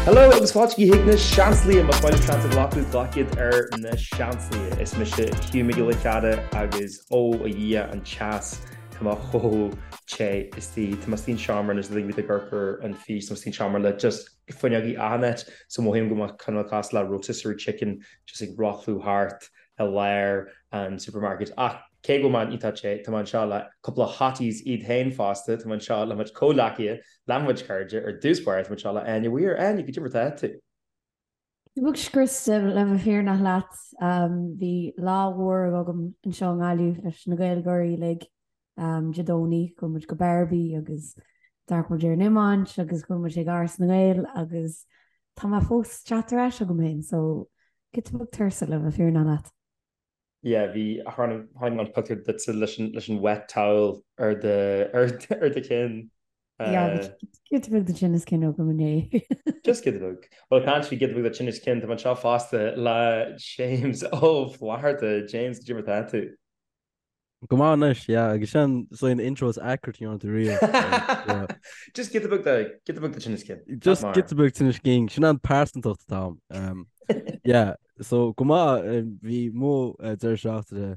Hello agus fáilte chuig na Seansálaithe, más maith libh seans a ghlacadh, glac iad ar na Seansálaithe. Is mise Hugh Mac Giolla Chearra agus ó a Dhia an teas tá mé chomh te istigh. Tá mé istigh an seomra anois le ag amharc ar an fís, tá mé istigh an seomra le just fuinneogaí achan áit so mothaím go mbeadh cineál cosúil le rotisserie chicken just ag rothlú thart i lár an supermarket. Ach cé go bhfuil mé iontach te, tá mé anseo le cúpla hotties iad féin fosta, tá mé anseo le mo chuid comhghleacaithe, le mo chuid cairde, ar dtús báire tá mé anseo le Áine Weir. Áine, goidé mar atá tú? Beag scriosta le bheith fírinneach leat. Bhí lá mhór agam anseo i nGaillimh leis na Gaeilgeoirí uilig Dé Domhnaigh. Chuaigh muid go Barbie agus d'amharc muid ar an iomáint agus chuaigh muid ag Áras na nGael agus tá mé fós teacht ar ais agam féin so giota beag tuirseach le bheith fírinneach leat. Yeah, bhí, chonaic mé an pictiúr duitse leis an, leis an wet towel ar do, ar, ar do chinn. Yeah, bhí giota beag de tinneas cinn agam inné. Just giota beag. Bhuel, caint faoi giota beag de tinneas cinn, tá mé anseo fosta le James Ó Flatharta. James, goidé mar atá tú? Go maith anois, yeah, agus sin so an intro is accurate a dhearna tú riamh. Just giota beag de, giota beag de tinneas cinn. Just giota beag tinneas cinn, sin an pearsantacht atá a'm. Yeah, so go maith, bhí mo deireadh seachtaine.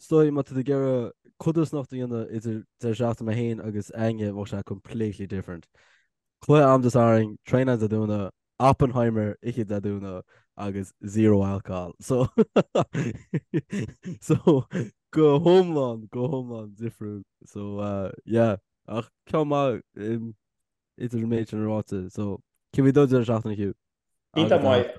Is dóigh má tá tú ag iarraidh codarsnacht a dhéanamh idir deireadh seachtaine mé féin agus Áine, bheadh sé completely different. Cluiche a'm Dé Sathairn, traenáil Dé Domhnaigh, Oppenheimer oíche Dé Domhnaigh agus zero alcohol. So so go hiomlán, go hiomlán difriúil. So uh, yeah, ach ceann maith um, idir an méid sin ráite. So cé bhí do deireadh seachtaine Hugh? Iontach maith,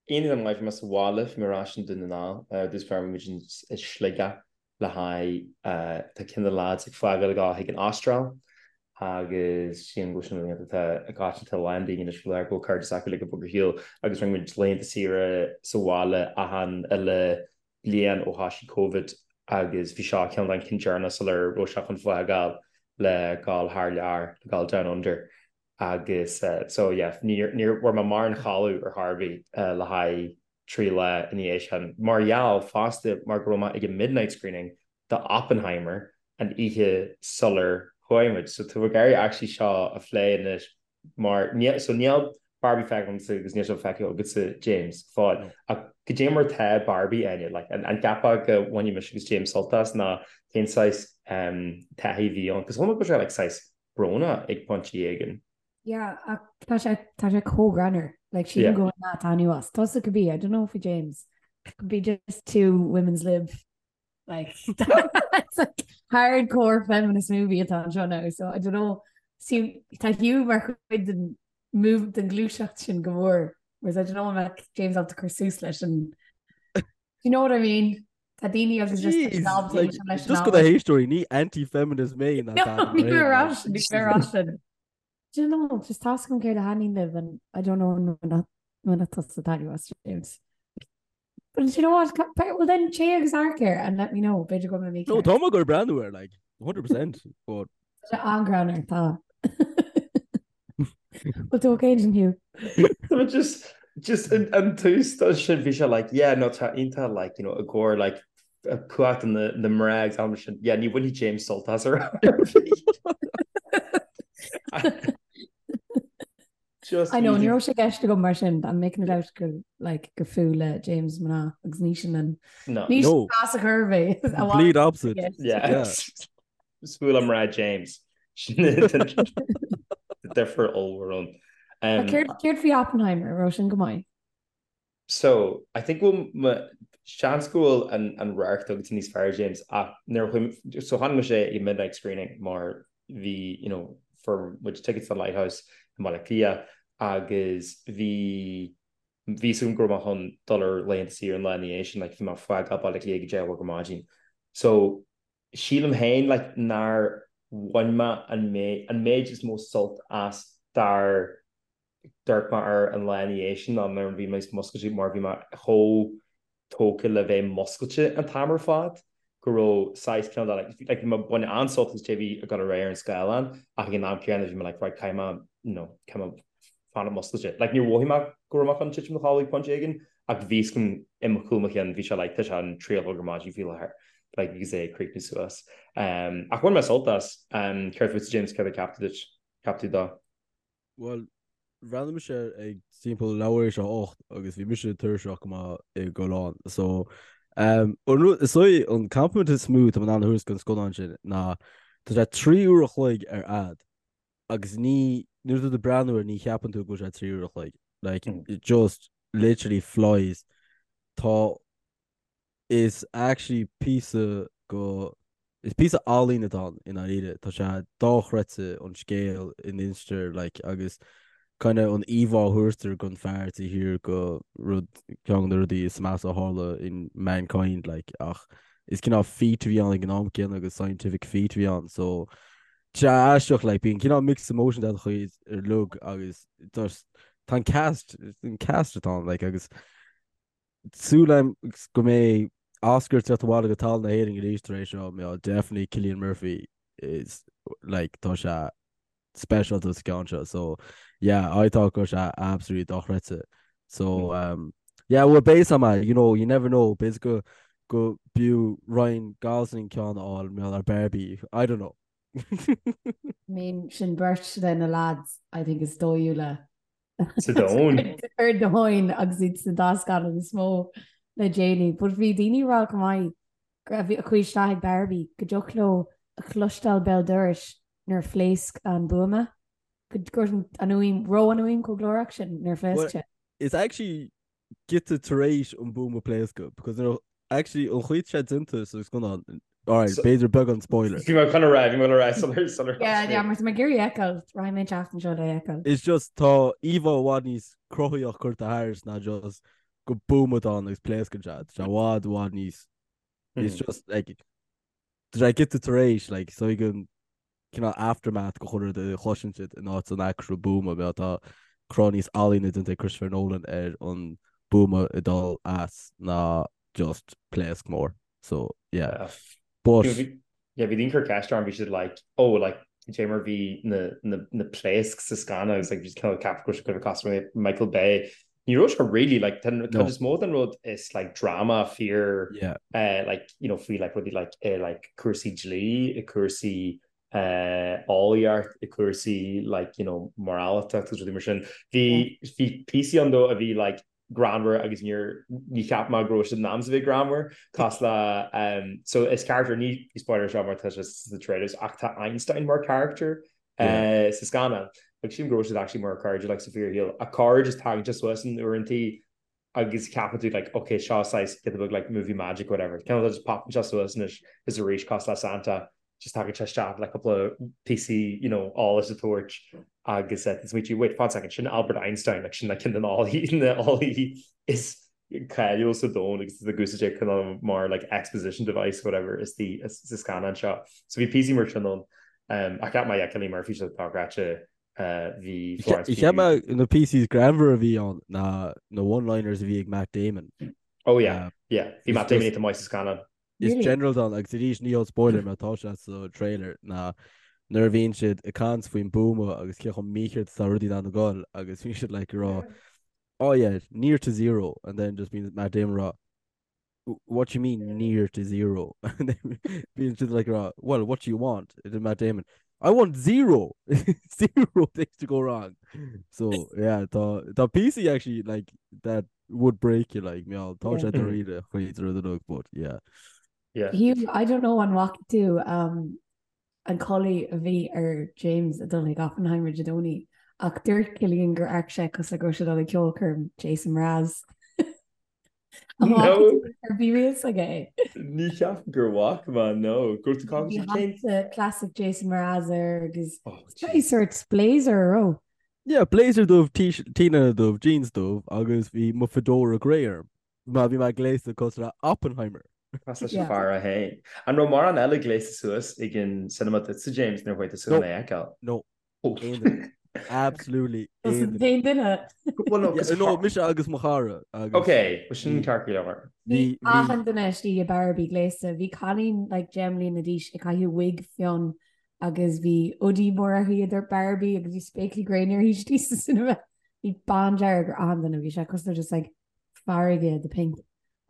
iontach maith bhí mé sa bhaile, bhí mé ar ais i nDún na nGall, uh, dtús báire bhí muid i Sligeach le haghaidh tá ceann de na lads ag fágáil ag dul chuig an Astráil agus sílim go bhfuil sin laethanta atá i gcoitianta a lán daoine anois faoi láthair go bhfuil cairde s'acu uilig ag bogadh ar shiúl agus rinne muid laethanta saoire sa bhaile achan uile bliain ó thoisigh Covid agus bhí seo ceann den cinn deireanach sular raibh sé chun fágáil le dhul thar lear, le dhul down under agus so yeah níor níor bhfuair mé mórán codladh ar chor ar bith le haghaidh 3 lá ina dhiaidh sin, mar gheall fosta mar go raibh mé ag an midnight screening do Oppenheimer an oíche sular chuaigh muid. So tá mé ag iarraidh actually seo a phlé anois mar níl, so níl Barbie feicthe agamsa agus níl sé feicthe agatsa James go fóill. Ach goidé mar tá Barbie, Áine, like an an gceapfá go mbainfidh mise agus James sult as nó cén saghas um, taithí a bhí ann? Cos chuala mé go raibh sé like saghas brónach ag pointí éigin. Yeah, ach tá sé tá sé chomh greannmhar. Like sílim go bhfuil Nat anuas. Tusa could be, I don't know faoi James. Could be just too women's lib. Like it's like hardcore feminist movie atá anseo now, so I don't know. See, tá Hugh mar chuid den move den gluaiseacht sin go mór. Whereas I don't know an mbeadh James ábalta cur suas leis an Do you know what I mean? Tá daoine agus just Jeez, knobs like, leis an just go na héisteoirí, ní anti-feminist mé ná No, Dad ní Rain, raibh like. sin, ní raibh sin. Do you know, just tá a fhios agam céard a thaitníonn libh and I don't know an mbainfeadh tusa taitneamh as James. But you know what, well then téigh agus amharc air and let me know, b'fhéidir go mbeidh mé No, ceart. tá mé ag goil breathnú air, like, 100%, but Tá sé an-ghreannmhar, tá. Bhfuil tú okay ansin, Hugh? Tá just just an an tús dó sin bhí sé like yeah no tá iontach like you know i gcomhair like cumhacht na na mná agus am sin yeah ní bhainfidh James sult as ar Just I know, ní raibh sé i gceist agam mar sin, I'm making it out gur like gur fuath le James mná agus ní sin an No. ní sin No. as a chur mé. Complete opposite. Yeah. Yeah. Is fuath le mná James. Sin difear ollmhór ann. Um, Céard céard faoi Oppenheimer, raibh sin go maith? So, I think go bhfuil seans go bhfuil an an radharc agatsa níos fearr James ach nuair a chuaigh so chonaic mise é ag midnight screening mar bhí you know fuair muid tickets don Lighthouse i mBaile Átha Cliath agus bhí bhí a fhios agam go raibh mé chun dul ar laethanta saoire an lá ina dhiaidh sin like bhí mé ag fágáil Baile Átha Cliath ag a 10 a chlog ar maidin. So sílim féin like nár bhain mé an méid an méid is mó sult as dár d'amharc mé air an lá ina dhiaidh sin ná nuair a bhí mé muscailte mar bhí mé chomh tógtha le bheith muscailte an t-am ar fad go raibh saghas cineál de like like bhí mé ag baint an-sult as cad é bhí ag dul ar aghaidh ar an scáileán ach ag an am céanna bhí mé like right caithfidh mé you know caithfidh mé fanacht muscailte. Like níor mhothaigh mé go raibh mé chun titim i mo chodladh ag pointe éigin ach bhí a fhios agam i mo chúl mo chinn bhí sé like tá sé an 3 a chlog ar maidin faoi láthair like agus é ag críochnú suas. Um, ach bhain mé sult as. Um, céard fútsa James céard a cheap tú duit? Cheap tú dó? Bhuel. Bhreathnaigh mise air ag timpeall leathuair tar éis a 8 agus bhí mise tuirseach go maith i gcodladh. So, um, an rud, is dóigh an compliment is mó atá mé in ann a thabhairt don scannán sin ná tá sé 3 uair a chloig ar fhad agus ní, nuair atá tú ag breathnú air ní cheapann tú go bhfuil sé 3 uair a chloig. Like, it just literally flies. Tá Is actually píosa go, is píosa ealaíne atá ann i ndáiríre. Tá sé dochreidte an scéal a n-instear like agus kind of an íomhá a thabhartar don fear taobh thiar de rud, ceann de na rudaí is measa a tharla in mankind like ach is cineál feat a bhí ann ag an am céanna agus scientific feat a bhí ann so tá sé aisteach like bíonn cineál mixed emotions agat chuid ar lug agus just tá an cast, an cast atá ann like agus Súil agam go mbeidh Oscar ag teacht abhaile go talamh na hÉireann arís tar éis seo, mar definitely Cillian Murphy is like tá sé speisialta sa ceann seo so yeah I thought go raibh sé absolutely dochreidte so um, yeah well beidh a fhios you know you never know b'fhéidir go go b'fhiú Ryan Gosling ceann a fháil mar ar Barbie I don't know. I mean sin beirt de na lads I think is dóighiúla Sa domhan. Ar domhan agus iad sna dá scannán is mó le déanaí. But bhí daoine ag rá go maith go raibh a chuaigh isteach ag Barbie go dtiocfadh leo a chloisteáil béal dorais nuair a phléasc an buama. Go raibh an fhuaim, raibh an fhuaim chomh glórach sin nuair a phléasc sé. It's actually giota tar éis an buama pléascadh because nuair actually an chaoi atá sé déanta sa scannán alright b'fhéidir beagán spoiler. Bhí mé chun a rá, bhí mé chun a rá sular sular Yeah, yeah, mar tá mé ag iarraidh é a fheiceáil, rachaidh mé an tseachtain seo le é a fheiceáil. It's just tá íomhá i bhfad níos cruthaíoch curtha thairis ná just go buama atá ann agus pléascann sé. Tá sé i bhfad i bhfad níos it's just like tá sé giota tar éis like so ag an cineál aftermath de chuile rud a chloiseann siad in áit an actual buama mar tá cruth níos ealaíne déanta ag Christopher Nolan ar an buama ag dul as ná just pléasc mór so yeah but Yeah, bhí daoine ag cur ceist orm, bhí siad like, oh, like, cad é mar bhí na, na, na pléasc sa scannán agus like, bhí siad cineál ceapadh go raibh sé kind of cosúil le Michael Bay. Ní raibh sé really, like, tá an No. cuid is mó den rud is like drama fíor Yeah. eh, like, you know, faoi like rudaí like, eh, like cúrsaí dlí, i cúrsaí eh, eolaíocht, i cúrsaí like, you know, moráltacht agus rudaí mar sin. Bhí bhí píosaí ann though a bhí like greannmhar agus níor ní cheap mé go raibh siad in am a bheith greannmhar cosúil le um, so is character ní spoiler seo mar tá sé sna trailers ach tá Einstein mar character eh, sa scannán. Agus sílim go raibh siad actually mar cairde like sa fíorshaol. Ach corruair just tagann sé suas in uaireantaí agus ceapann tú like ok seo saghas giota beag like movie magic whatever. Cineál just popann sé suas anois is arís cosúil le Santa just tagann sé isteach le cúpla píosaí you know eolais a tabhairt agus eh, smaoitiú wait one second sin Albert Einstein like sin like ceann de na eolaithe is cáiliúil sa domhan agus tá úsáid é cineál mar like exposition device whatever is the sa scannán seo. So bhí píosaí mar sin ann. Um, ach cheap mé yeah, Cillian Murphy sé dochreidte uh, bhí Florence Cheap mé na píosaí greannmhar a bhí ann ná na one-liners a bhí ag Matt Damon. Oh yeah, um, yeah. Bhí Matt Damon iontach maith sa scannán. Is general don agus arís ní spoiler mar tá sé sa trailer ná nuair a bhíonn siad ag caint faoin buama agus cé chomh mícheart is atá rudaí in ann a ghoil agus bhíonn siad like ag rá oh yeah, near to zero and then just bíonn Matt Damon ag rá what do you mean near to zero? And then bíonn siad like ag rá well what do you want? And then Matt Damon I want zero zero things to go wrong. So yeah tá tá píosaí actually like that would break you like meall tá sé dáiríre chuid rud a but yeah. Yeah. Hugh, I don't know an bhfaca tú um, an culaith a bhí ar James ag dul chuig Oppenheimer Dé Domhnaigh ach dúirt Cillian gur amharc sé cosúil le go raibh sé ag dul ag ceolchoirm Jason Mraz. An bhfaca No. tú ar bhí riamh aige é? Ní cheapaim gur bhfaca mé, no. Go raibh tú Bhí cén hata classic Jason Mraz air agus Oh, bhí sort blazer an raibh. Yeah, blazer dubh, t-léine dubh, jeans dubh agus bhí mo fedora grey orm. Má bhí mé gléasta cosúil le Oppenheimer. Cosúil leis an fear é féin. An raibh mórán eile gléasta suas ag an cinema duitse, James, nuair a chuaigh tusa chun é a fheiceáil? No. Aon duine. Absolutely aon duine. Aon duine. Well, no, 'cause No, mise agus mo chara agus. Ok, well sin ceart go leor. Bhí achan duine istigh i Barbie gléasta. Bhí cailín like 10 mbliana d'aois ag caitheamh wig fionn agus bhí hoodie mór uirthi a dúirt Barbie agus bhí spéaclaí gréine uirthi istigh sa cinema. Bhí bándearg ar achan duine, bhí sé cosúil le just like farraige de pink.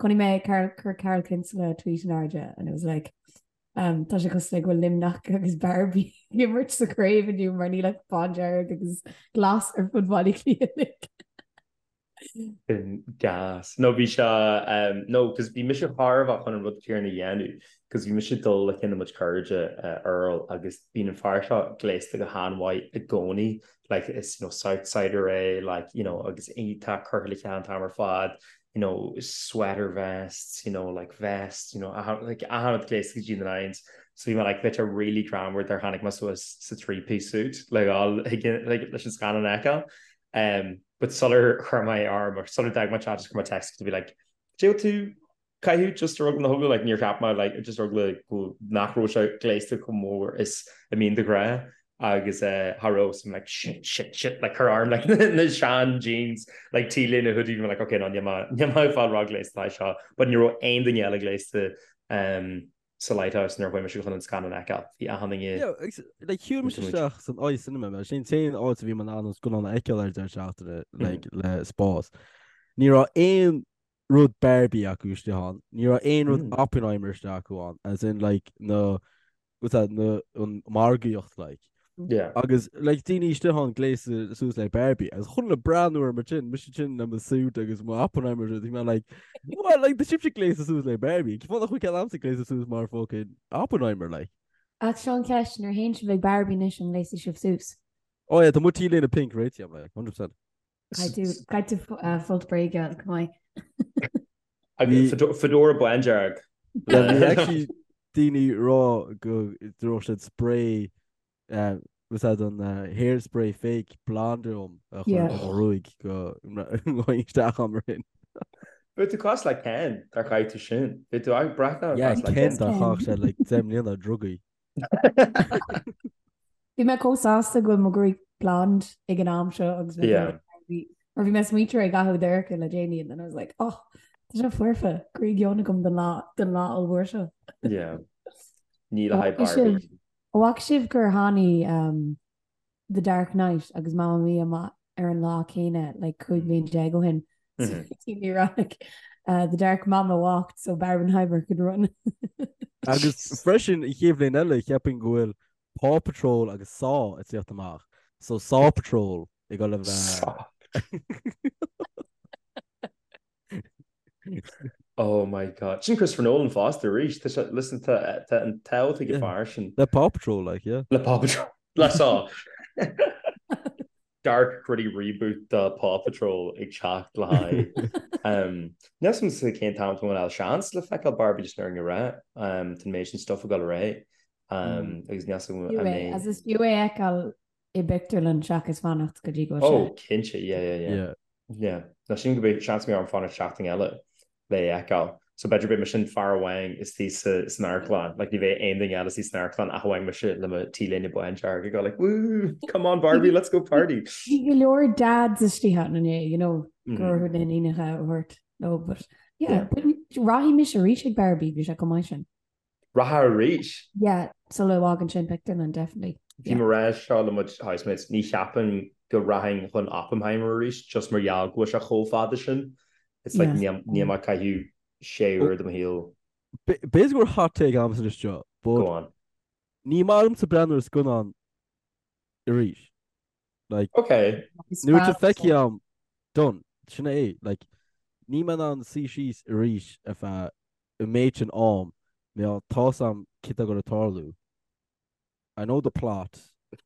Chonaic mé Carl, chuir Carl Kinsella tweet in airde and it was like. Um, tá sé cosúil le go bhfuil Luimneach agus Barbie ag imirt sa chraobh inniu mar níl ach bándearg agus glas ar fud Bhaile Átha Cliath. Sin gas. No bhí sé um, no cos bhí mise thar a bheith chun an rud céanna a dhéanamh cos bhí mise ag dul le ceann de mo chuid cairde uh, Earl agus bíonn an fear seo gléasta go han-mhaith i gcónaí like is you know Southsider é like you know agus tá curtha le chéile an t-am ar fad you know sweater vests you know like vests you know like achan rud gléasta go dtí na nines so bhí mé like bheadh sé really greannmhar dár tháinig mé suas sa three piece suit le dhul like leis an scannán a fheiceáil um but sular chuir mé orm or sular d'fhág mé teach chuir mé text to be like Did tú caitheamh just ar eagla na heagla like níor cheap mé like just ar eagla go nach raibh sé gléasta chomh mór is a mbíonn de ghnáth agus eh cha raibh so I'm like shit shit shit like chuir orm like na sean jeans like t-léine hoodie bhí mé like okay no níl mé níl mé ag fáil róghléasta le seo but ní raibh aon duine eile gléasta um sa Lighthouse nuair a chuaigh mise chun an scannán a fheiceáil bhí achan duine Yeah, agus, like, shiúil mise isteach san iCinema, mar sin t-aon áit a bhí mé in ann an scannán a fheiceáil ar deireadh seachtaine, like, le spás. Ní raibh aon rud Barbie acu istigh ann. Ní raibh aon rud mm. Oppenheimer istigh acu ann, as in like na what's that, na an margaíocht like. Yeah. Agus like daoine istigh ann gléasta suas le Barbie agus chuile dhuine ag breathnú orm mar sin mise sin le mo suit agus mo Oppenheimer bhí mé like well like tá sibhse gléasta suas le Barbie Cén fáth nach bhfuil ceann a'msa gléasta suas mar fucking Oppenheimer like. Ach seo an cheist nuair a théann sibh ag Barbie anois an ngléasfaidh sibh suas? Oh yeah, tá mo t-léine pink réitithe a'm like 100%. Caithfidh tú folt bréige go maith. Agus fedora bándearg. Bhí actually daoine ag rá go raibh siad spray was that an hairspray fake blonde orm a chur ar mo ghruaig go ngabhfainn isteach ann mar sin. Bheadh tú cosúil le Ken dár chaith tú sin. Bheadh tú ag breathnú Yeah, cosúil le Ken dár chaith sé like 10 mbliana drugaí. Bhí mé chomh sásta go bhfuil mo ghruaig blonde ag an am seo agus mé Yeah. mar bhí mé smaointear ag caitheamh dorcha le déanaí and then I was like, oh, tá sé foirfe, gruaig fhionn agam don lá don lá ollmhór seo. Yeah. Ní le haghaidh Barbie. An bhfaca sibh gur tháinig um, The Dark Knight agus Mamma Mia amach ar an lá céanna like 15 bliain ó shin. So bhí rá like, uh, The Dark Mama walked so Barbenheimer could run. Agus freisin an chéad bhliain eile cheapfainn go bhfuil Paw Patrol agus Saw ag tíocht amach. So Saw Patrol ag dul a bheith. Saw. Oh my God. Sin Christopher Nolan fosta arís. Tá sé, listen, tá, tá an t-ádh ag an fear sin. Le Paw Patrol, like, yeah. Le Paw Patrol. Le Saw. Dark gritty reboot de Paw Patrol ag teacht le haghaidh. Um, níl a fhios agam cén t-am tá mé seans le feiceáil Barbie just ar an ré. Um, tá an méid sin stuff ag dul ar aghaidh. Um, agus níl a fhios agam an mbeidh. As is fiú é a fheiceáil i bpictiúrlann seachas fanacht go dtí go bhfuil sé. Oh, cinnte, yeah, yeah, yeah. Yeah. Yeah. Ná sílim go mbeidh seans go mbeidh orm fanacht seachtain eile le é a fheiceáil. So b'fhéidir beidh mise an fear amháin istigh sa san amharclann. Like ní bheidh aon duine eile istigh san amharclann ach amháin mise le mo t-léine bándearg ag dul like woo, come on Barbie, let's go party. Bhí go leor dads istigh ann inné, you know, go raibh na n-iníonacha a thabhairt leo, but yeah, Yeah. but rachaidh mise arís ag Barbie, bhí sé chomh maith sin. Rachfá arís? Yeah, sula bhfágann sé an pictiúrlann, definitely. Bhí mé ag rá seo le mo chuid housemates, ní cheapaim go rachainn chun Oppenheimer arís just mar gheall go bhfuil sé chomh fada sin. It's like Yeah. níl mé ag caitheamh sé uair de mo shaol. B'fhéidir go bhfuil hot take a'msa anois seo, but Go on. ní maith liomsa breathnú ar scannán arís. Like, Okay. nuair atá feicthe a'm, done. Sin é. Like, níl mé in ann suí síos arís ar feadh an méid sin am, mar tá 'fhios a'm céard atá ag dul a tarlú. I know the plot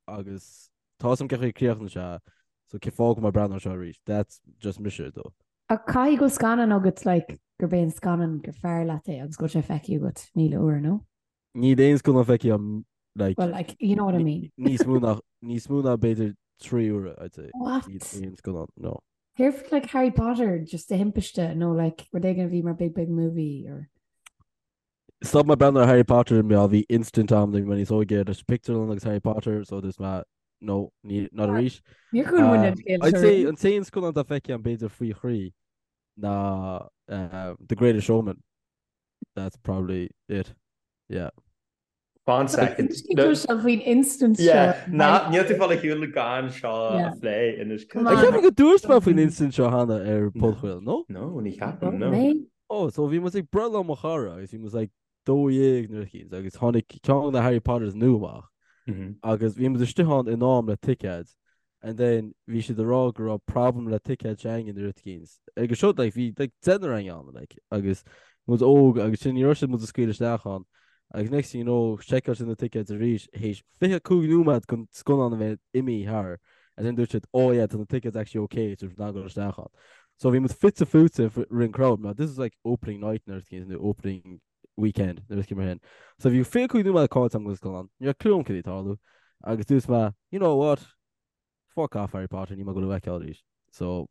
agus tá 'fhios a'm cén chaoi a críochnaíonn sé, so cén fáth go mbeidh mé ag breathnú air seo arís? That's just mise though. Ach caithfidh go bhfuil scannán agat like gurb é an scannán gur fearr leat é agus go bhfuil sé feicthe agat 1000 uair, no? Níl aon scannán feicthe a'm like Well, like, you know what I mean. níos mó ná níos mó ná b'fhéidir 3 uaire, I'd say. What? Níl aon scannán, no. Céard like Harry Potter just de thimpiste nó like rud éigin a bhí mar big big movie or. Stop mé breathnú ar Harry Potter mar bhí incident a'm nuair a bhí mé níos óige leis pictiúrlann agus Harry Potter so dúirt mé no ní not arís. Níor chuala muid an scéal I'd seo say riamh. an t-aon scannán atá feicthe a'm b'fhéidir faoi thrí ná The Greatest Showman. That's probably it. Yeah. Fan second. Tá faoin incident seo. Yeah, ná, níl tú fáil ar shiúl gan seo a phlé anois. Come on. Ceapaim go dúirt mé faoin incident seo cheana ar podchraoladh, no? No, ní cheapaim, no. Oh, so bhí muid ag breithlá mo chara agus bhí muid like. 12 nó rud eicínt agus tháinig ceann de na Harry Potters nua amach agus bhí muid istigh ann in am le ticéid and then bhí siad ag rá go raibh problem le ticéid s'againne nó rud eicínt. Agus seo like bhí like deichniúr againn ann like agus muid óg agus sin ní raibh siad muid a scaoileadh isteach ann agus next thing you know seiceáil siad na ticéid arís théis 25 nóiméad den scannán a bheith imithe thar and then dúirt siad oh yeah tá na tickets actually okay so we're dul isteach ann. So bhí muid fite fuaite rinn crowd mar this is like opening night nó rud eicínt nó opening weekend nó rud eicínt mar sin. So bhí 25 nóiméad caillte agam den scannán, ní raibh clue agam cad é tarlú agus dúirt mé you know what fuck off Harry Potter níl mé ag dul a fheiceáil arís. So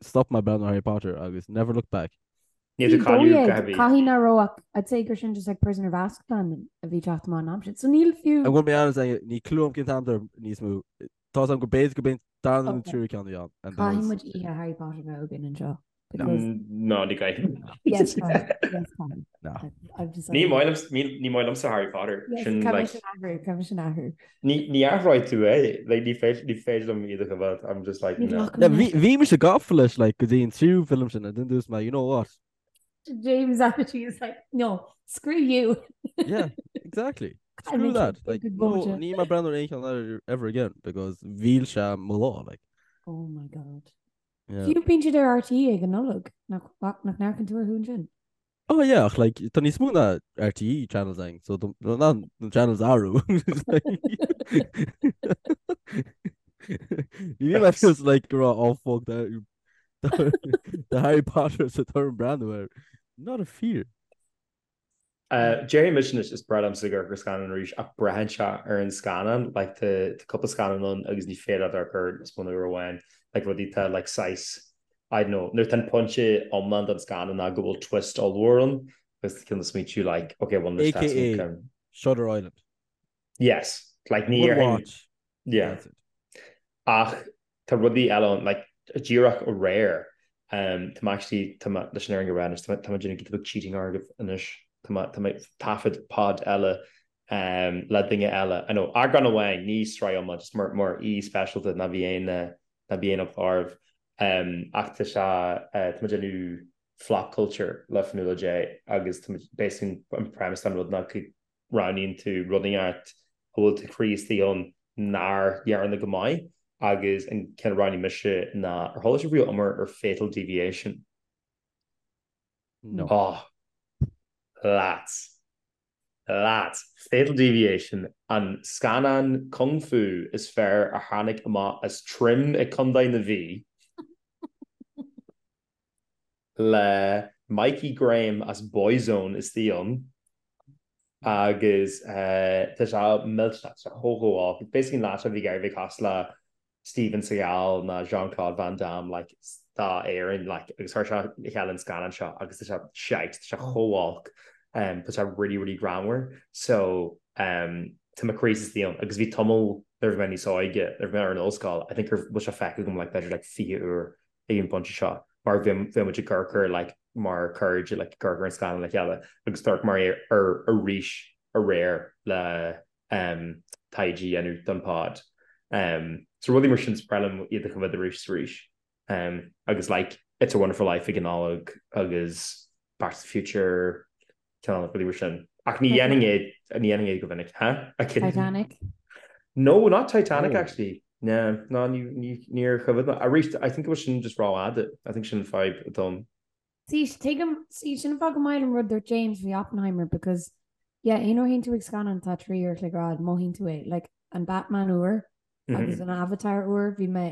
stop mé breathnú ar Harry Potter agus never looked back. Níl tú cailleadh go heavy. Caithfidh nach raibh ach I'd say gur sin just like Prisoner of Azkaban a bhí teacht amach an am sin. So níl fiú. I'm gonna be honest, ní clue agam cén t-am dar níos mó. Tá am go b'fhéidir go b'in darna nó tríú ceann a bhí ann. and that Caithfidh was- muid oíche Harry Potter bheith againn anseo. Because Ná ní gcaithfidh. yes, caithfidh. Yes, caithfidh. No. I've decided. Ní maith liom ní ní maith liomsa Harry Potter. Yes, Sin caithfidh like sin athrú, caithfidh sin athrú. ní ní athróidh tú é. Like ní féidir ní féidir liom iad a choimhéad. I'm just like Ní no. ghlacann Yeah, mé. bhí bhí mise gafa leis like go dtí an tríú film sin and then dúirt mé you know what? James attitude is like, no, screw you. Yeah, exactly. I Screw mean, that. good Like, good no, vóta. níl mé ag breathnú ar aon cheann eile ever again because mhill sé mo lá, like. Oh my God. Yeah. Fiú bíonn siad ar RTÉ ag an Nollaig, nach nach n-amharcann tú orthu ansin? Oh yeah, ach like, tá níos mó ná RTÉ channels ann, so tá ná na channels athrú. Ní bhí mé just like go raibh oh fuck that The Harry Potter sa turn breathnú air. Not a fear. Déarfaidh mise anois is breá liomsa amharc ar scannán arís ach braitheann sé ar an scannán like tá cúpla scannán ann agus ní féidir leat amharc air níos mó ná uair amháin like rudaí atá like saghas I don't know nuair atá an pointe iomlán den scannán ná go bhfuil twist ollmhór ann agus tá cineál smaointiú like okay well anois tá AKA Shutter Island. Yes like ní One watch. Yeah. That's it. Ach tá rudaí eile ann, like, díreach aréir, um, tá mé actually, tá mé, leis an fhírinne a rá anois, tá mé, tá mé déanamh giota beag cheating oraibh anois, tá mé, tá mé ag taifead pod eile, um, le duine eile, I know, eagrán amháin, ní sraith iomlán, just mar, mar aoi speisialta, ná bí aon, ná bí aon eagla oraibh, um, ach tá sé, uh, tá mé déanamh flop culture le Fionnuala J agus tá mé, basically an premise den rud ná go roghnaíonn tú rud inteacht a bhfuil do chroí istigh ann nár dhearna go maith agus an ceann a roghnaigh mise ná ar chuala sibh riamh iomrá ar Fatal Deviation? No. Oh, lads. Lads. Fatal Deviation, an scannán kung fu is fearr a tháinig amach as Trim i Contae na Mí. le Mikey Graham as Boyzone istigh ann agus tá sé millteanach, tá sé chomh chomh olc. Basically an leaid seo a bhí ag iarraidh a bheith cosúil le Steven Seagal ná Jean-Claude Van Damme like d'Éirinn like agus chuir sé le chéile an scannán seo agus tá sé shite, tá sé chomh olc, tá sé really really greannmhar so tá mo chroí istigh ann agus bhí tamall nuair a bhí mé níos óige, nuair a bhí mé ar an ollscoil, I think gur bhfuil sé feicthe agam like b'fhéidir like 20 uair ag an bpointe seo mar bhí muid ag amharc air like mar cairde like ag amharc ar an scannán le chéile agus d'amharc mé air arís aréir le um, taighde a dhéanamh don pod. Um, so rudaí mar sin is breá liom iad a choimhéad arís is arís. Um, agus like It's a Wonderful Life ag an Nollaig agus Back to the Future cineál rudaí mar sin. Ach ní dhéanfainn é ní dhéanfainn é go minic. Huh? Titanic? No, not Titanic oh. actually. No, no, níor choimhéad mé. Arís, I think it was sin just rófhada. I think sin fadhb dom. See, tuigim, see, sin an fáth gur maith liom rud dúirt James faoi Oppenheimer because, yeah, aon uair a théann tú ag scannán atá 3 uair a chloig ar fhad, mothaíonn tú é. Like, an Batman úr agus an Avatar úr, bhí mé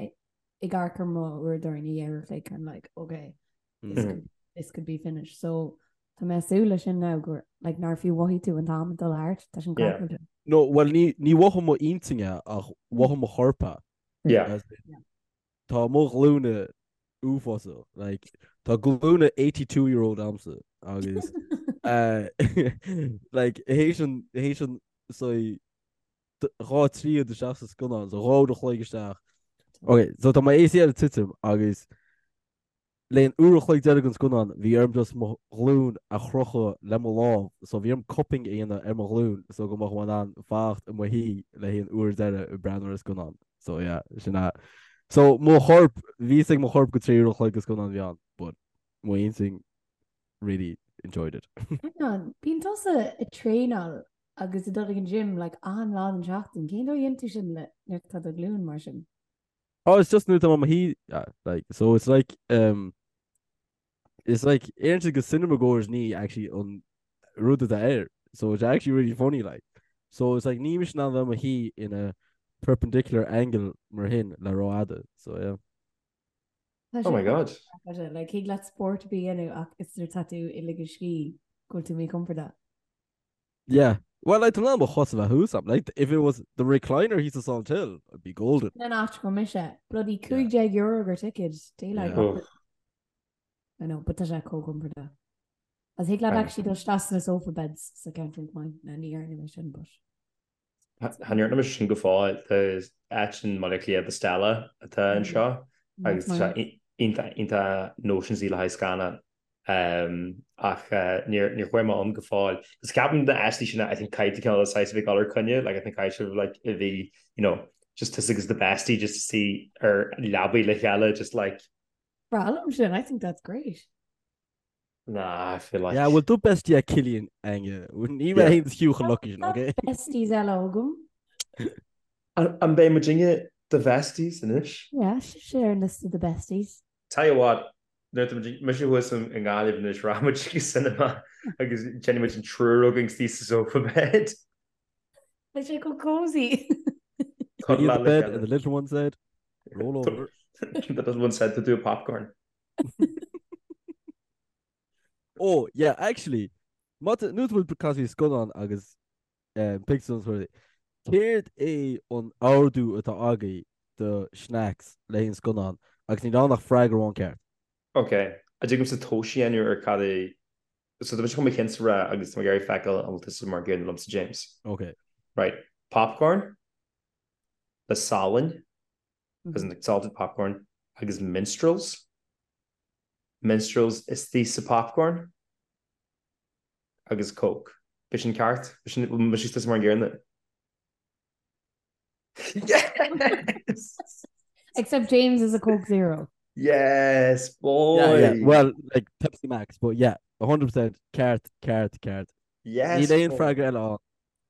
ag amharc ar mo uaireadóir i ndiaidh uair a chloig, I'm like, okay, this could, this could be finished. So, tá mé ag súil leis sin now gur, like, nár fiú mhothaigh tú an t-am ag dul thart, tá sin Yeah. craiceáilte. No, well, ní, ní mhothaigh mo intinn é ach mhothaigh mo chorp é. Yeah. As in, Tá mo ghlúine uafásach. Like, tá glúine 82 year old a'msa agus eh, like, théis an, théis an, so, 2 tríad isteach sa scannán, so 2 uair a chloig isteach. Ok, so tá mo ACL ag titim agus le an uair a chloig deiridh den scannán bhí orm just mo ghlúin a chrochadh le mo lámh, so bhí orm cupping a dhéanamh ar mo ghlúin so go mbeadh mé in ann fanacht i mo shuí le haghaidh an uair deiridh ag breathnú ar an scannán. So yeah, sin é. So mo chorp, bhí fhios ag mo chorp go 3 uair a chloig de scannán a bhí ann, but mo intinn really. enjoyed it. Hang on, bíonn tusa ag traenáil agus ag dul ag an gym like achan lá den tseachtain, cén dóigh a dhéanann tú sin le nuair atá do ghlúin mar sin? Oh, it's just nuair atá mé i mo shuí, yeah, like, so it's like, um, it's like, éiríonn siad go cinema goers ní actually an rud atá air, so it's actually really funny, like. So it's like, níl mise in ann bheith i mo shuí in a perpendicular angle mar shin le rófhada, so yeah. Oh my god. Like, thig leat spórt a bheith a dhéanamh ach is nuair atá tú ag ligean scíth go bhfuil tú míchompordach. Yeah. Well, like, tá mé in ann mo chos a bheith thuas a'm. Like, if it was the recliner thíos sa Salthill, I'd be golden. Sin an áit go mise. Bloody €15 gur ticket. Daylight Yeah. I know, but tá sé chomh compordach. As thig leat actually dul isteach sna sofa beds sa ceantar maith. Na ní dhearna mé sin, but. Chan dhearna mise sin go fóill. Tá áit in mBaile Átha Cliath, The Stella, atá anseo agus tá sé iontach iontach notionsy le haghaidh scannán. Ach níor chuaigh mé ann go fóill. Agus ceapaim na áiteanna sin I think caithfidh tú cineál saghas a bheith ag dul ar coinne, like I think caithfidh sibh like a bhí you know just tusa agus the bestie just to suí ar leabaidh le chéile just like Breá liom sin, I think that's great. Nah, I feel like. Yeah, bhfuil do bestie ag Cillian Aine. Ní mé féin is fiú chomh lucky sin, okay? Besties eile agam. An mbeidh muidinne do bhesties anois? Yeah, sibhse ar an liosta de besties. Tell you what, nuair atá muid, mise thuas i nGaillimh anois, rachaidh muid chuig an cinema agus déanfaidh muid an triúr againn istigh sa sofa bed. Beidh sé chomh cozy. Cuddle the bed and the little one said, roll over. The little one said to do a popcorn. Oh, yeah, actually, má tá, nuair atá muid ag caint faoi scannán agus um, pictiúrlann is rudaí, céard é an ordú atá agaibh do snacks le haghaidh an scannán agus níl ann ach freagra amháin ceart. Ok, an dtig liomsa tomhas a dhéanamh ar cad é, so tá mise chun mo chinnse a rá agus tá mé ag iarraidh feiceáil an bhfuil tusa mar an gcéanna liomsa James. Ok. Right, popcorn le salann as in like salted popcorn, agus minstrels, minstrels istigh sa popcorn, agus coke. B'shin ceart? B'shin, mise tusa mar an gcéanna? Yes! Except James is a Coke Zero. Yes, boy! Yeah, yeah. Well, like Pepsi Max, but yeah, 100% ceart, ceart, ceart. Yes! Níl aon freagra eile ann.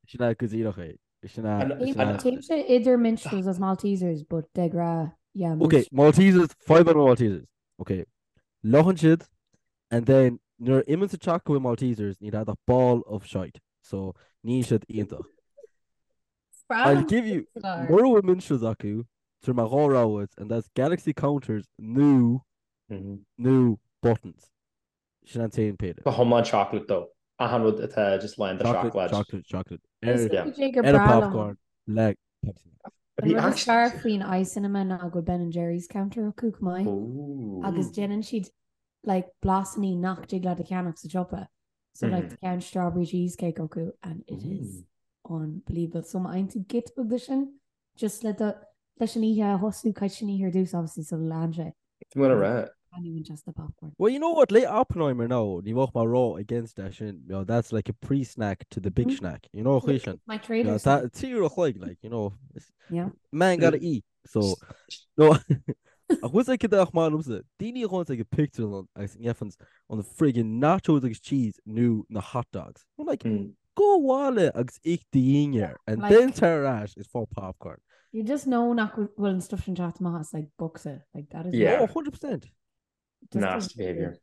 Sin é go díreach é. Sin é. Téimse idir Minstrels agus Maltesers, but de ghnáth, yeah. Ok, Maltesers, fadhb le Maltesers. Ok, fliuchann siad, and then nuair a imíonn sa teach go bhfuil Maltesers, níl agat ach ball of shite. So, níl siad iontach. I'll give you, mura bhfuil Minstrels acu, tabharfaidh mé dhá rogha duit, and that's Galaxy Counters nó, nó Buttons. Sin an t-aon péire. Go hiomlán chocolate though. Achan rud atá just lán de seacláid. Chocolate, chocolate, chocolate. Ar ar a popcorn le Pepsi Max. An rud is fearr faoin iCinema ná go bhfuil Ben and Jerry's counter acu chomh maith. Agus déanann siad like blasanna nach dtig leat a cheannach sa siopa. So like tá ceann strawberry cheesecake acu and it is unbelievable. So má fhaigheann tú giota beag de sin Just le do, leis an oíche a thosú, caithfidh sin oíche ar dtús obviously sula leann sé. Tá mé rá. And even just the popcorn. Well, you know what, le Oppenheimer now, ní bheadh mé ró against é sin, you know, that's like a pre-snack to the big snack, you know, chuí sin. My trader. You know, tá trí uair a chloig, like, you know, yeah. man gotta eat, so, no, ach bhfuil sé cad ach maith liomsa, daoine a ghabhanns ag an pictiúrlann agus gheibheanns an friggin nachos agus cheese nó na hot dogs. I'm like, Gabh abhaile agus ith do dhinnéar and Like- then tar ar ais is faigh popcorn. You just know nach bhfuil an stuff sin teacht amach as like bocsa. Like that is Yeah. Oh, 100%. just Nasty behaviour.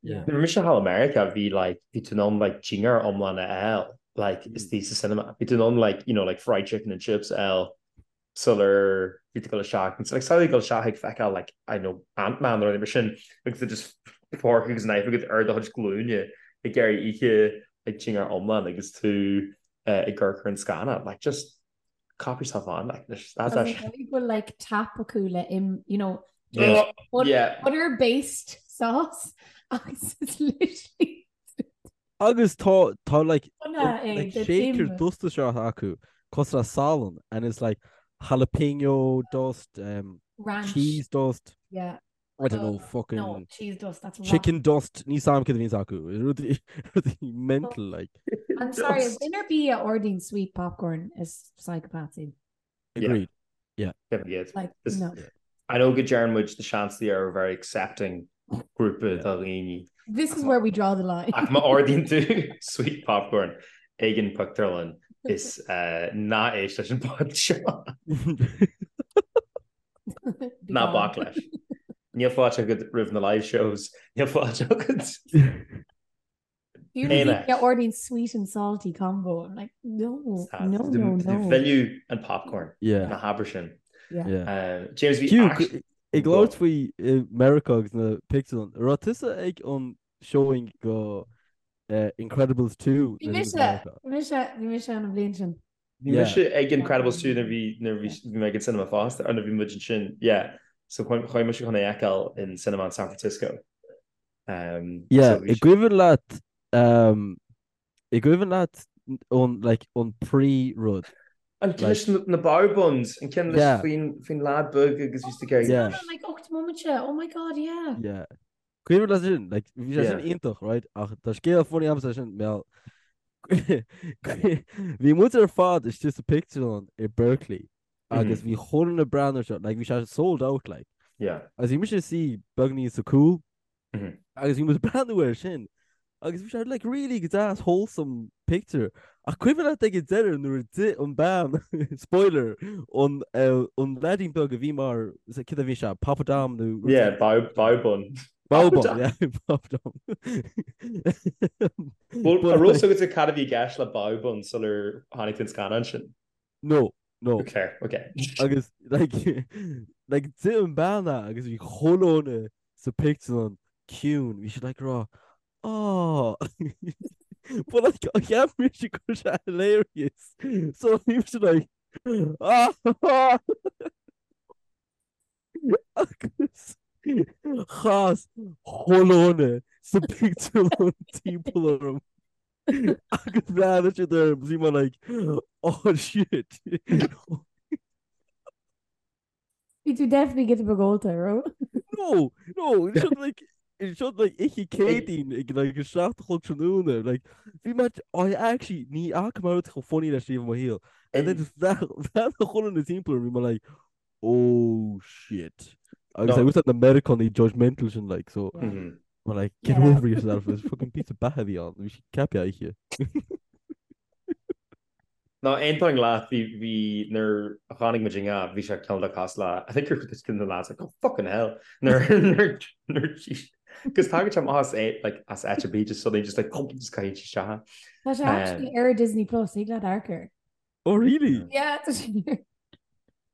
Yeah. Nuair a bhí mise thall i Meiriceá bhí like bhí tú in ann like dinnéar iomlán a fháil like istigh sa cinema. Bhí tú in ann like you know like fried chicken and chips a fháil sular bhí tú ag dul isteach. And so like samhlaigh ag dul isteach ag feiceáil like I know Ant-Man nó rud mar sin agus tú just fork agus knife agat ar do chuid glúine ag iarraidh ithe like dinnéar iomlán agus tú uh, ag amharc ar an scannán like just cop yourself on like that's Agus actually go bhfuil like tap acu le im you know Yeah. butter, Yeah. butter based sauce agus it's literally Agus tá tá like Bunaithe é like den shaker im. dusta seo acu cosúil le salann and it's like jalapeno dust um, Ranch. cheese dust Yeah. I don't know No, fucking cheese dust, that's rotten. chicken dust níl 's a'm cad a bhíonns acu rudaí rudaí mental like I'm sorry, Dust. duine ar bith a ordaíonn sweet popcorn is psychopath iad. agreed Yeah. Like, This- no. I know go deireann muid the seans they are very accepting. grúpa de dhaoine. This is where we draw the line. Ach má ordaíonn tú sweet popcorn ag an pictiúrlann is ná éist leis an pod seo. Ná bac leis. Níl fáilte agat roimh na live shows, níl fáilte agat. Fiú na daoine a ordaíonn sweet and salty combo, I'm like, no, no, no, no. Mhilleadh an popcorn, ná habair sin. James, bhí Hugh, ag labhairt faoi Meiriceá agus na pictiúrlann, raibh tusa ag an showing go Incredibles 2? Bhí mise, bhí mise, bhí mise an bhliain sin. Bhí mise ag Incredibles 2 nuair bhí nuair bhí mé ag an cinema fosta, or nuair bhí muid ansin, yeah. So chuaigh mise chun é a fheiceáil in cinema in San Francisco. Um, yeah, so i gcuimhin leat um, i gcuimhin leat an like an pre rud. An ceann leis na bao buns, an ceann leis faoin faoin lad beag agus bhí ag yeah. Like 8 móimint oh my god, yeah. Yeah. Cuimhin leat sin, like bhí sé sin iontach, right? Ach tá scéal funny agamsa sin mé Bhí muid ar fad istigh sa pictiúrlann i Berkeley agus bhí chuile dhuine ag breathnú air seo, like bhí sé sold out like. Yeah. Agus bhí mise suí beagnín sa cúl agus bhí muid ag breathnú air sin agus bhí sé like really go deas wholesome picture. Ach cuimhin leat ag an deireadh nuair a d'ith an bean, spoiler, an eh, an leaidín beag a bhí mar, cad a bhí sé, Papadam nó rud Yeah, bao, bao bun. Bao bun, yeah, Papadam. Well, an raibh fhios agat cad a bhí i gceist le bao bun sular tháinig tú an scannán sin? No, no. Okay, okay. Agus like like d'ith an bean é agus bhí chuile dhuine sa pictiúrlann ciúin, bhí siad like ag rá oh But like cheap mise go raibh sé hilarious so bhí mise like ah Agus chas chuile dhuine sa pictiúrlann timpeall orm. Agus bhreathnaigh siad orm bhí mé like oh shit. Bhí tú definitely giota beag ólta, raibh? No, no, seo like seo like oíche Céadaoin ag like a 7 a chlog tráthnóna like bhí mé I actually ní fhaca mé rud chomh funny leis riamh i mo shaol. And then just bhreathnaigh chuile dhuine timpeall orm bhí mé like oh shit. Agus I was na Meiriceánaigh judgmental sin like so mm-hmm. Well, like, get yeah. over yourself is fucking píosa beatha a bhí ann, bhí sí ceaptha aici. No, aontaím leat bhí bhí nuair a chonaic muid inga bhí sé cineál de cosúil le I think you're just the lads like oh fucking hell nuair nuair nuair Cos tagann sé amach as é like as áit ar bith just suddenly just like just caithfidh sé isteach. Tá sé actually ar Disney Plus ag leat amharc air. Oh really? Yeah, tá sé.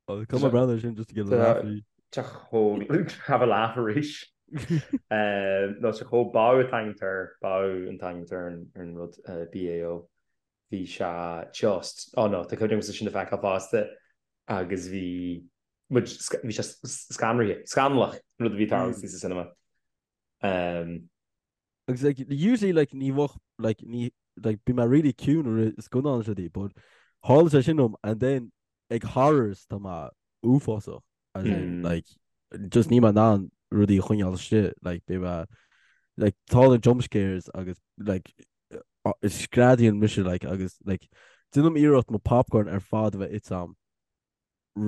Oh, come on brother sin just to get a laugh. Tá chomh have a laugh arís. Nó sa chomh bao an t-ainm air bao an t-ainm ar an rud BAO. Bhí sé just oh no, tá cuimhne agamsa sin a feiceáil fosta agus bhí muid bhí sé scanraithe, scannalach an rud a bhí ag tarlú sa cinema. Agus like usually like ní bheadh like ní like bím really ciúin i rith scannán is rudaí but tharla sé sin dom and then ag horrors tá mé uafásach as in like just níl mé in ann rudaí a choinneáil istigh like beidh mé like tá na jump scares agus like screadaíonn mise like agus like déanaim iarracht mo popcorn ar fad a bheith ite agam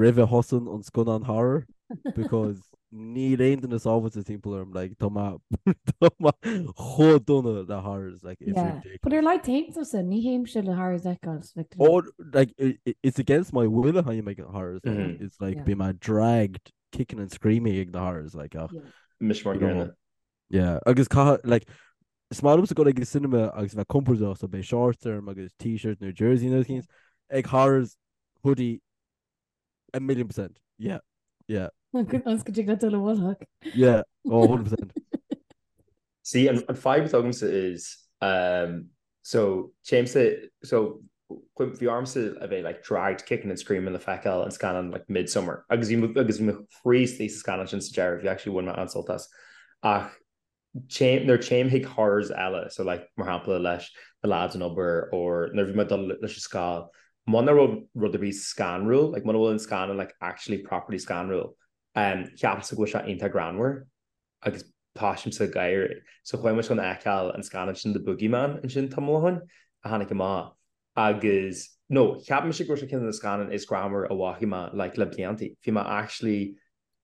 roimh a thosaíonn an scannán horror because níl aon duine sábháilte timpeall orm like tá mé tá mé chomh dona le horrors like it's Yeah. ridiculous. But ar like théim tusa, ní théimse le horrors a fheiceáil like Or like i- i- it's against my will a théim ag horrors like, Mhm. it's like Yeah. bím mé dragged kicking and screaming ag na horrors like ach Yeah. Mise mar You know. gcéanna. yeah agus caithfidh like is maith liomsa dul ag an cinema agus bheith compordach so beidh shorts orm agus t-shirt nó jersey nó things ag horrors hoodie a million percent. Yeah. Yeah. Ionas go dtig leat dul i bhfolach. Yeah. Oh, 100%. See, an, an fadhb atá agamsa is, um, so, téimse, so, bhí ormsa a bheith like dragged kicking and screaming le feiceáil an scannán like Midsommar agus bhí agus bhí mo chroí istigh sa scannán sin sa deireadh, bhí actually bhain mé an-sult as. Ach téim, nuair téim chuig horrors eile, so like mar shampla leis na lads an obair or nuair bhí mé ag dul leis an scoil, muna raibh rud ar bith scanrúil, like muna bhfuil an scannán like actually properly scanrúil, um, ceapaimse go bhfuil sé iontach greannmhar agus tosaímse ag gáire. So chuaigh muid chun a fheiceáil an scannán sin The Boogeyman ansin tamall ó shin a tháinig amach agus no, cheap mise go raibh sé ceann de na scannáin is greannmhar a bhfaca mé like le blianta. Bhí mé actually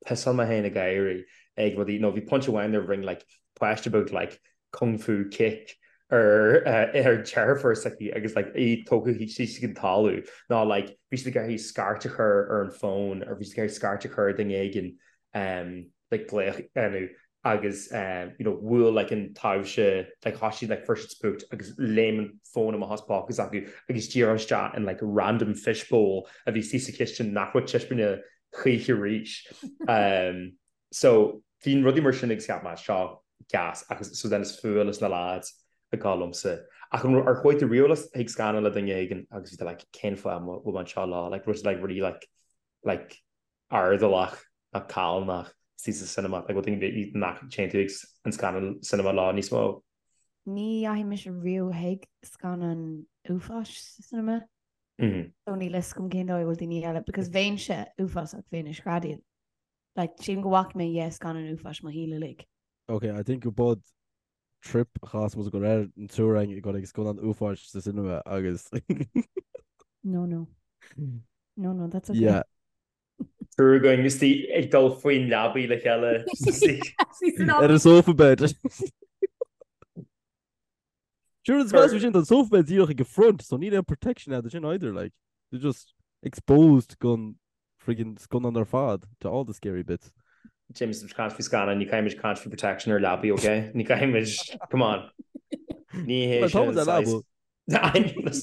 pissáil mé féin ag gáire. ag rudaí nó bhí pointe amháin nuair a rinne like páiste beag like kung fu kick ar ar deirfiúr s'aici agus like í tógtha síos ag an talamh nó like bhí siad ag iarraidh scairt a chur ar an bhfón or bhí siad ag iarraidh scairt a chur ar duine éigin um like glaoch a dhéanamh agus um you know bhuail like an taibhse like thosaigh siad like fuair siad spooked agus léim an fón amach as póca s'acu agus díreach isteach in like random fishbowl a bhí istigh sa chistin nach raibh taispeána choíche arís. Um So bhí rudaí mar sin agus cheap mé seo gas agus so then is fuath leis na lads ag gabháil liomsa. Ach an ar chuaigh tú riamh chuig scannán le duine éigin agus bhí tú like cén fáth a bhfuil mé anseo leo like raibh siad like really like like airdeallach nó callánach istigh sa cinema like bhfuil duine nach dtéann tú ag an scannán cinema leo níos mó? Ní dheachaigh mise riamh chuig scannán uafáis sa cinema. So níl a fhios agam cén dóigh a bhfuil daoine eile because bheinnse uafásach bheinn ag screadaíl. Like, sílim go bhfaca mé dheich scannán uafáis mo shaol uilig. Ok, I think go bud trip a chas muid go léir an triúr againn ag dul ag scannán uafáis sa cinema agus No, no. No, no, that's okay. Yeah. Triúr againn istigh ag dul faoin leabaidh le chéile. Ar an sofa bed. Sure, is best sin an sofa bed díreach ag an front, so níl aon protection agat sin either, like. They're just exposed gon friggin scannán ar fad to all the scary bits. James, tá caint faoi scannán, ní caithfimid caint faoi protection ar leabaí, ok? Ní caithfimid, come on. Ní hé Well, tá sin muid ar saghas. leaba.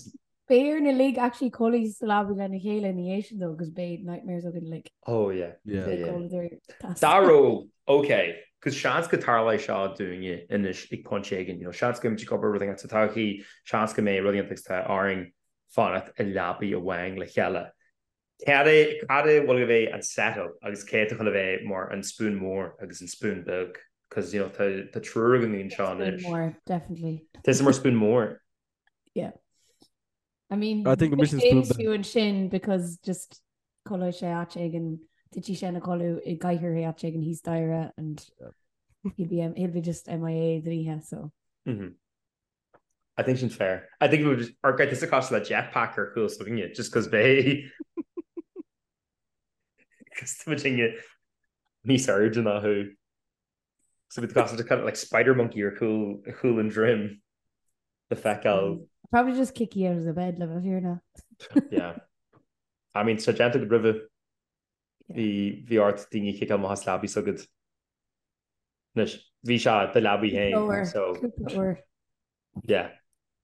Beidh orainn uilig actually codladh sa leabaidh lena chéile ina dhiaidh sin though, 'cause beidh nightmares againn uilig. Oh yeah. Yeah. Yeah, yeah. Codladh tas. Dá raibh, ok, 'cause seans go dtarlóidh seo dúinne anois ag pointe éigin, you know, seans go mbeimid ag obair rud éigin sa todhchaí, seans go mbeidh rud éigin agus tá orainn fanacht i leabaidh amháin le chéile. Cad é, cad é bhfuil a bheith an set-up agus cé atá chun a bheith mar an spoon mór agus an spoon beag? 'Cause, you know, tá, tá triúr againn anseo Spoon anois. mór, definitely. Tusa mar spoon mór. Yeah. I mean, I think go mise spoon James fiú ansin because just codlóidh sé áit éigin, titfidh sé ina chodladh i gcathaoir áit éigin thíos staighre and he'll be, he'll be just MIA don oíche, so. Mm -hmm. I think sin fair. I think we would ar gait is a cosúil le jetpack ar chúl s'againne just cos beidh cos tá muidinne níos airde ná thú. So bhí cosúil kind of like spider monkey ar chúl ar chúl an droim le feiceáil. Probably just kick you out of the bed le bheith fírinneach. Yeah. I mean, tá déanta agat roimhe bhí bhí ort daoine a chiceáil amach as leabaí s'agat. Anois, bhí sé do leabaí féin, so. Cúpla uair. Yeah.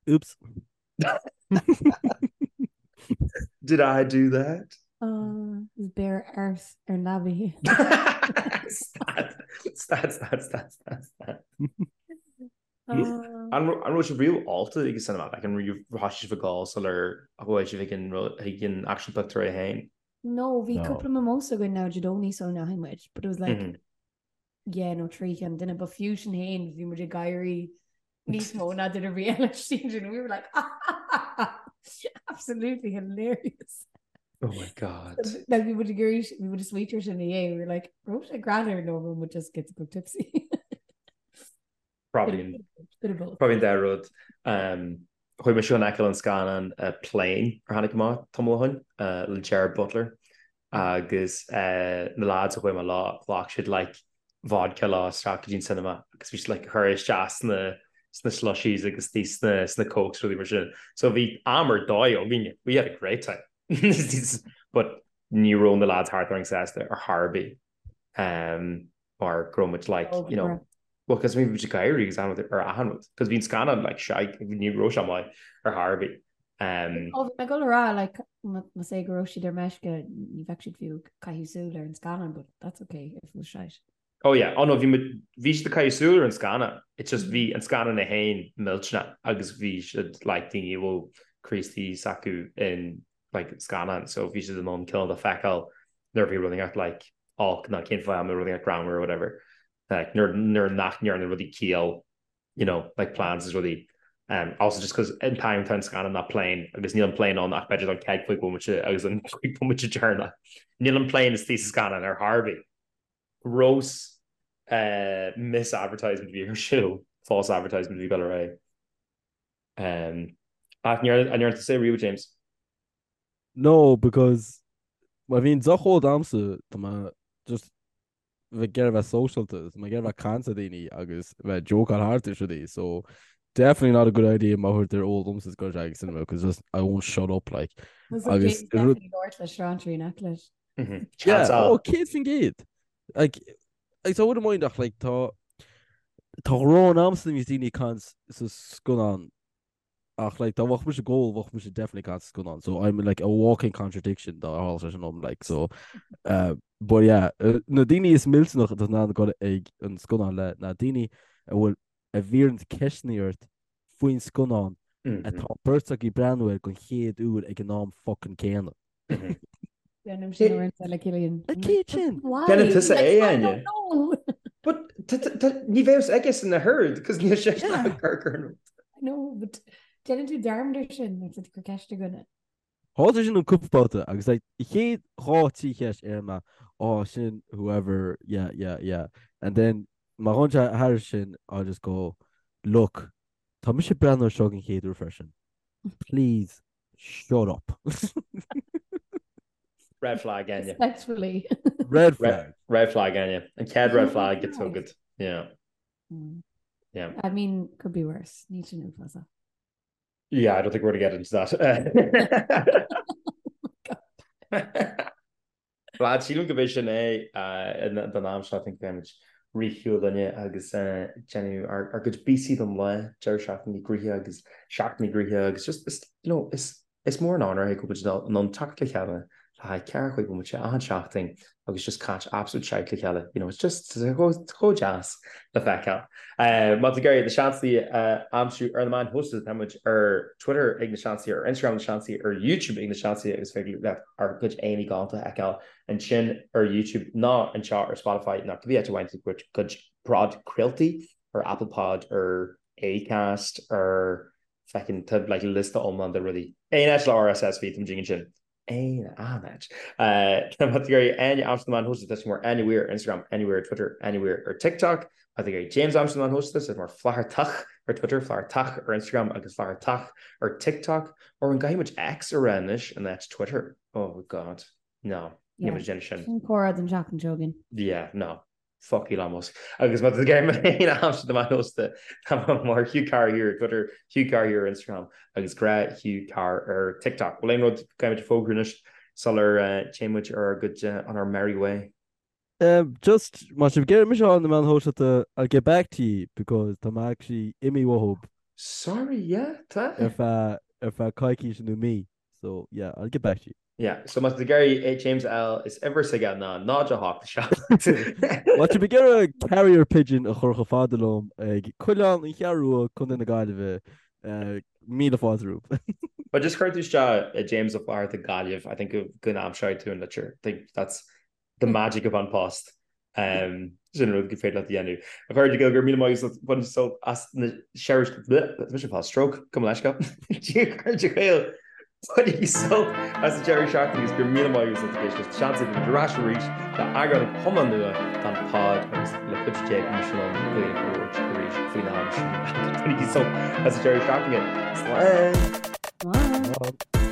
Oops. Did I do that? Oh, is beir ars ar leabaí. Stad, stad, stad, stad, stad, stad. An raibh sibh riamh ólta ag an cinema? Like, an raibh thosaigh sibh ag ól sular chuaigh sibh ag an ag an actual pictiúr é féin? No, bhí cúpla mimosa againn now Dé Domhnaigh sula ndeachaigh muid, but it was like, mm -hmm. yeah, nó 3 cheann duine, but fiú sin féin bhí muid ag gáirí níos mó ná duine ar bith eile sin we were like absolutely hilarious. Oh my god. Like bhí muid ag gáirí bhí muid ag smaoitiú air sin ina dhiaidh, we were like, raibh sé greannmhar nó raibh muid just giota beag tipsy. Probably an probably an dá rud. Um, chuaigh mise chun fheiceáil an scannán uh, Plane ar tháinig amach tamall ó shin uh, le Gerard Butler agus uh, na lads a chuaigh mé leo ghlac siad like vodka leo isteach go dtí an cinema agus bhí siad like ag cur isteach sna sna slushies agus tí sna sna cokes rudaí mar sin. So bhí am ar dóigh againne. We had a great time. But ní raibh na lads thart orainn sásta ar chor ar bith. Um, mar go raibh muid like, you know, well, cos bhí muid ag gáirí agus an ar achan rud, cos bhí an scannán like shite, ní raibh sé maith ar chor ar bith. Um, Ó, bhí mé ag dul a rá, like, más é go raibh siad ar meisce, ní bheadh siad fiú ag caitheamh súil ar an scannán, but that's okay if it was shite. Oh yeah, oh no, bhí muid, bhí siad ag caitheamh súil ar an scannán, it's just bhí an scannán é féin millteanach agus bhí siad like daoine a bhfuil Críostaí s'acu in like scannán, so bhí siad in ann cineál de feiceáil nuair a bhí rud inteacht like olc nó cén fáth a mbeadh rud inteacht greannmhar or whatever like nuair nuair nach ndearna rudaí ciall you know like plans is rudaí um also just cos an t-am tá an scannán ná plane agus níl an plane ann ach b'fhéidir don chéad chúig bhomaite agus an chúig bhomaite deireanach níl an plane istigh sa scannán ar chor ar bith. Gross uh misadvertisement a bhí ar siúl false advertisement a bhí ag dul ar aghaidh. Um ach an ndearna tusa é riamh James? No, because má bhíonn deoch ólta a'msa, tá mé just bheith ag iarraidh bheith sóisialta, tá mé ag iarraidh bheith ag caint le daoine agus bheith ag jócáil thart is rudaí, so definitely not a good idea má chuirtear ól domsa is go ag cinema because just I won't shut up like. Agus rud le srántrí nach leis. Yeah, oh, 100%. Like, like, I wouldn't mind ach like tá tá rón agamsa nuair a bhíos daoine ag caint sa scannán Ach like dá mbeadh mise ag ól bheadh mise definitely ag caint sa scannán so I'm like a walking contradiction dá tharla sé sin dom like so uh, but yeah uh, na daoine is millteanach atá in ann dul ag an scannán le na daoine a bhfuil a bhíonn ceisteanna ort faoin scannán mm -hmm. atá beirt agaibh ag breathnú air don chéad uair ag an am fucking céanna. Déanaim sin uaireanta le Cillian. A chéad sin! Déanann tusa é, Áine. But ní bheadh aige san na herd, cos níl sé ag cur ar an rud. No, but déanann tú dearmad ar sin nuair atá tú ag cur ceist ar dhuine. Tharla sin an cúpla babhta agus like chéad dhá trí cheist ar mé, oh sin whoever, yeah, yeah, yeah. And then má ghabhann sé thairis sin, I'll just go, look, tá mise ag breathnú air seo den chéad uair freisin. Please Shut up. Red flag, Áine. Respectfully. Red flag. Red flag, Áine. An chéad red flag gets so good. Yeah. Mm. Yeah. I mean, could be worse. Ní sin uafásach. Yeah, I don't think we're going to get into that. Lads, sílim go b'é sin é don am seo, I think beimid ag rith shiúl linne agus déanamh ár gcuid bíosaí don lá, deireadh seachtaine gnoitheach agus seachtain gnoitheach agus just is, you know, is is mór an onóir é go bhfuil muid in ann teacht le chéile le haghaidh 45 bomaite achan seachtain agus just caint absolute shite le chéile, you know, it's just chomh deas le feiceáil. Má tá tú ag iarraidh na Seansálaithe a aimsiú ar na meáin shóisialta, tá muid ar Twitter ag Na Seansálaithe, ar Instagram Na Seansálaithe, ar YouTube ag Na Seansálaithe agus féidir leat ár gcuid aghaidheanna galánta a fheiceáil ansin ar YouTube nó anseo ar Spotify nó cibé áit a bhfaigheann tú do chuid podchraoltaí, ar Apple Pod, ar Acast, ar feckin' tá like liosta iomlán de rudaí. Aon áit le RSS feed, tá muid ansin. Aon áit. Má tá tú ag iarraidh Áine a aimsiú ar na meáin shóisialta, tá sí mar Áine Weir ar Instagram, Áine Weir ar Twitter, Áine Weir ar TikTok. Má tá tú ag iarraidh James a aimsiú ar na meáin shóisialta, tá sé mar Flathartach ar Twitter, Flathartach ar Instagram agus Flathartach ar TikTok. Or an gcaithfidh muid X a rá anois in áit Twitter? Oh God. No. Níl muid ag déanamh sin. Sin comhrá don tseachtain seo chugainn. Yeah, no. Fuck Elon Musk. Agus má tá tú ag iarraidh mé féin a aimsiú ar na meáin shóisialta, tá mé mar Hugh Carr here ar Twitter, Hugh Carr here ar Instagram agus Grá Hugh Carr ar TikTok. Bhfuil aon rud caithfidh muid a fógrú anois sular téann muid ar ár gcuid on our merry way? Just, má tá sibh ag iarraidh mise a fháil ar na meáin shóisialta, I'll get back to you because tá mé actually imithe uathub. Sorry, yeah, tá. Ar feadh, ar feadh coicíse nó mí. So, yeah, I'll get back to you. Yeah, so má tá tú ag iarraidh James a fháil is uimhir s'aige ná 0 8 7. Má tá sibh ag iarraidh carrier pigeon a chur chomh fada liom ag Coileán an Cheathrú Rua, Contae na Gaillimhe, míle fáilte romhaibh. But just cuir tú isteach James Ó Flatharta Gaillimh, I think go n-aimseoidh tú an litir. I think that's the magic of An Post. Sin rud gur féidir leat a dhéanamh. A chairde, go raibh míle maith agat bain sult as na deireadh mise fá stroke gabh mo leithscéal. A chairde Gael bainigí sult as an deireadh seachtaine agus go raibh míle maith agat as ucht éisteacht. Seans go ar ais arís le eagrán iomlán nua den pod agus le cuidiú Dé go mbeidh mise in ann Gaeilge a labhairt arís faoin am sin. Bainigí sult as an deireadh seachtaine. Slán! Slán!